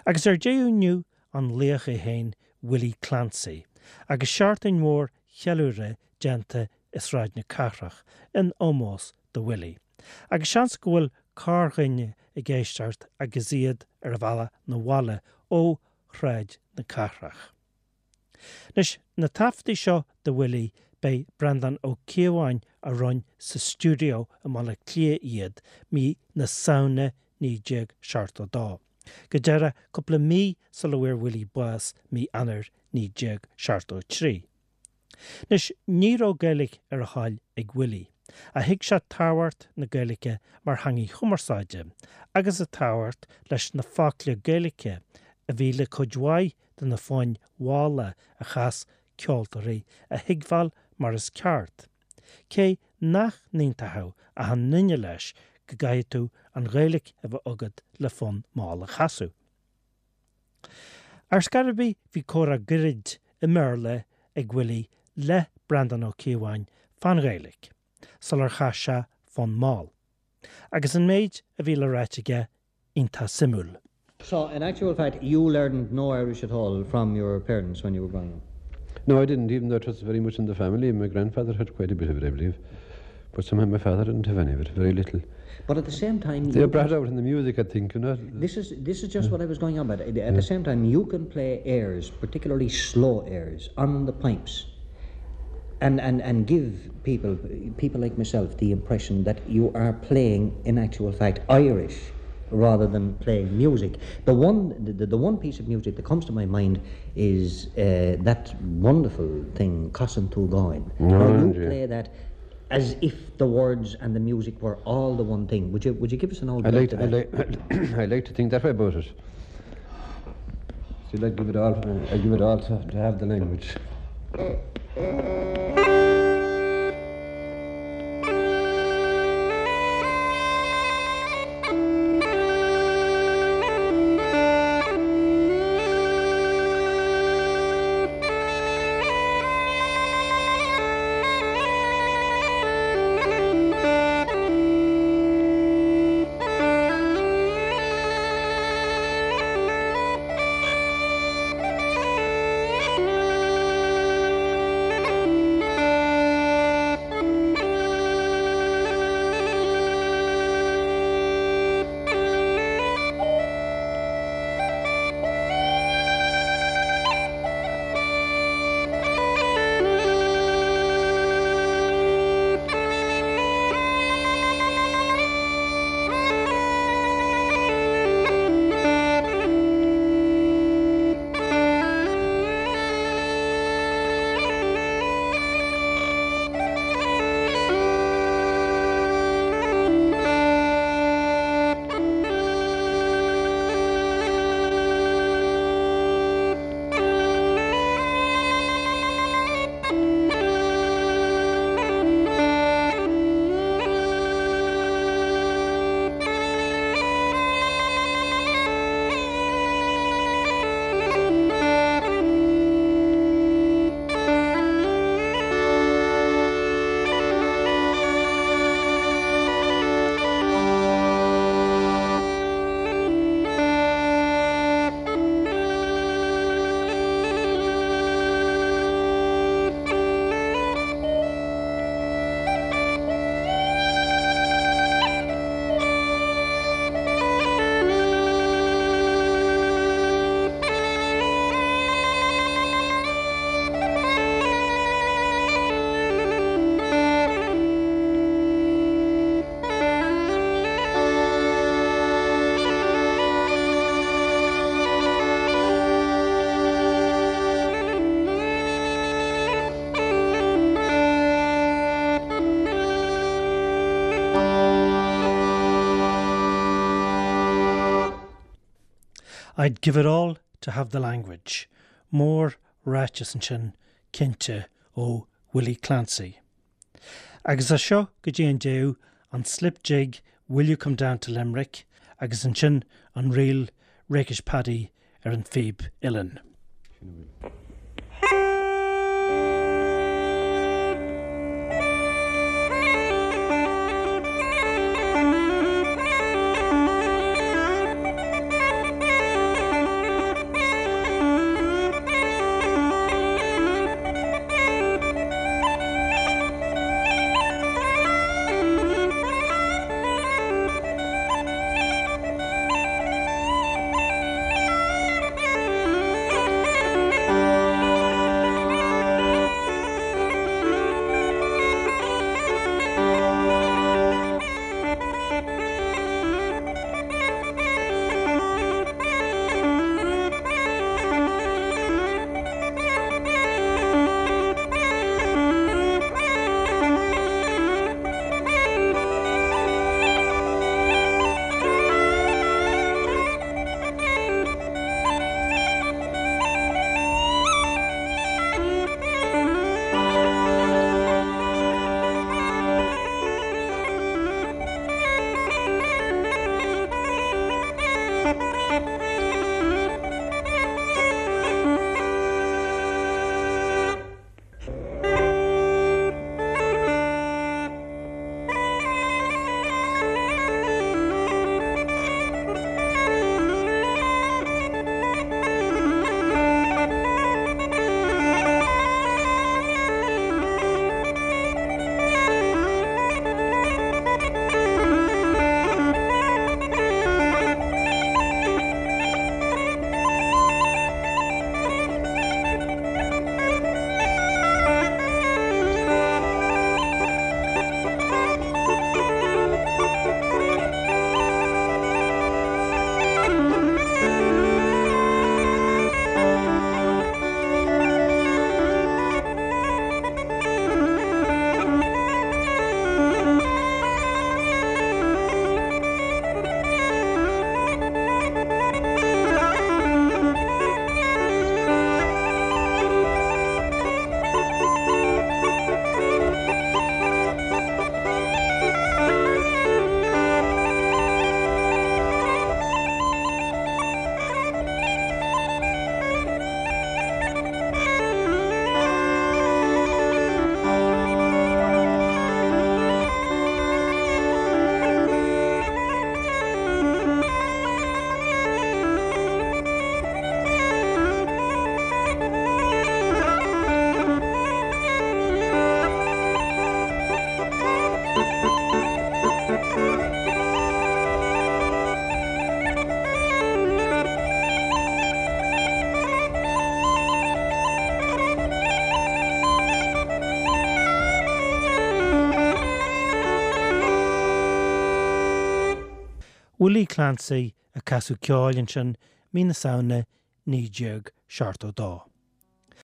Agus ar deireadh inniu an laoch é féin Willie Clancy agus seachtain mhór cheiliúrtha déanta i Sráid na Cathrach in ómós do Willie. Agus seans go bhfuil corrdhuine ag éisteacht agus iad ar a bhealach 'na bhaile ó Shráid na Cathrach. Anois, na taifeadtaí seo de Willie, b'é Breandán Ó Cíobháin a rinne sa stiúideo i mBaile Átha Cliath iad mí na Samhna 1972. Go díreach cúpla mí sula bhfuair Willie bás mí Eanáir 1973. Anois, ní raibh Gaeilge ar a thoil ag Willie, ach thuig sé tábhacht na Gaeilge mar theangaidh chumarsáide agus a tábhacht leis na focla Gaeilge a bhí le cuid mhaith de na foinn mhalla a chas ceoltóirí a thuigbheáil mar is ceart, cé nach n-aontódh achan nduine leis go gcaithfidh tú an Ghaeilge a bheith agat le fonn mall a chasadh. Ar scor ar bith bhí comhrá gairid i mBéarla ag Willie le Breandán Ó Cíobháin fán Ghaeilge sular chas sé fonn mall. Agus an méid a bhí le ráit aige iontach suimiúil. So, in actual fact, you learned no Irish at all from your parents when you were growing up? No, I didn't, even though it was very much in the family. My grandfather had quite a bit of it, I believe. But somehow my father didn't have any of it, very little. But at the same time... They brought out in the music, I think, you know. This is, this is just what I was going on about. At yeah. the same time, you can play airs, particularly slow airs, on the pipes. And, and, and give people, people like myself the impression that you are playing, in actual fact, Irish rather than playing music. The one, the, the one piece of music that comes to my mind is uh, that wonderful thing, Cousin Tugain. No, you play that as if the words and the music were all the one thing. Would you, would you give us an old I like, I like, I like to think that way about it. See, I'd give it all, I'd give it all to, to have the language. I'd give it all to have the language. Mór ráiteas ansin, cinnte, ó Willie Clancy. Agus as seo go dtí an deireadh, an slip jig Will You Come Down to Limerick agus ansin an ríl Rakish Paddy ar an phíb uilleann. Willie Clancy ag casadh ceoil ansin mí na Samhna 1972.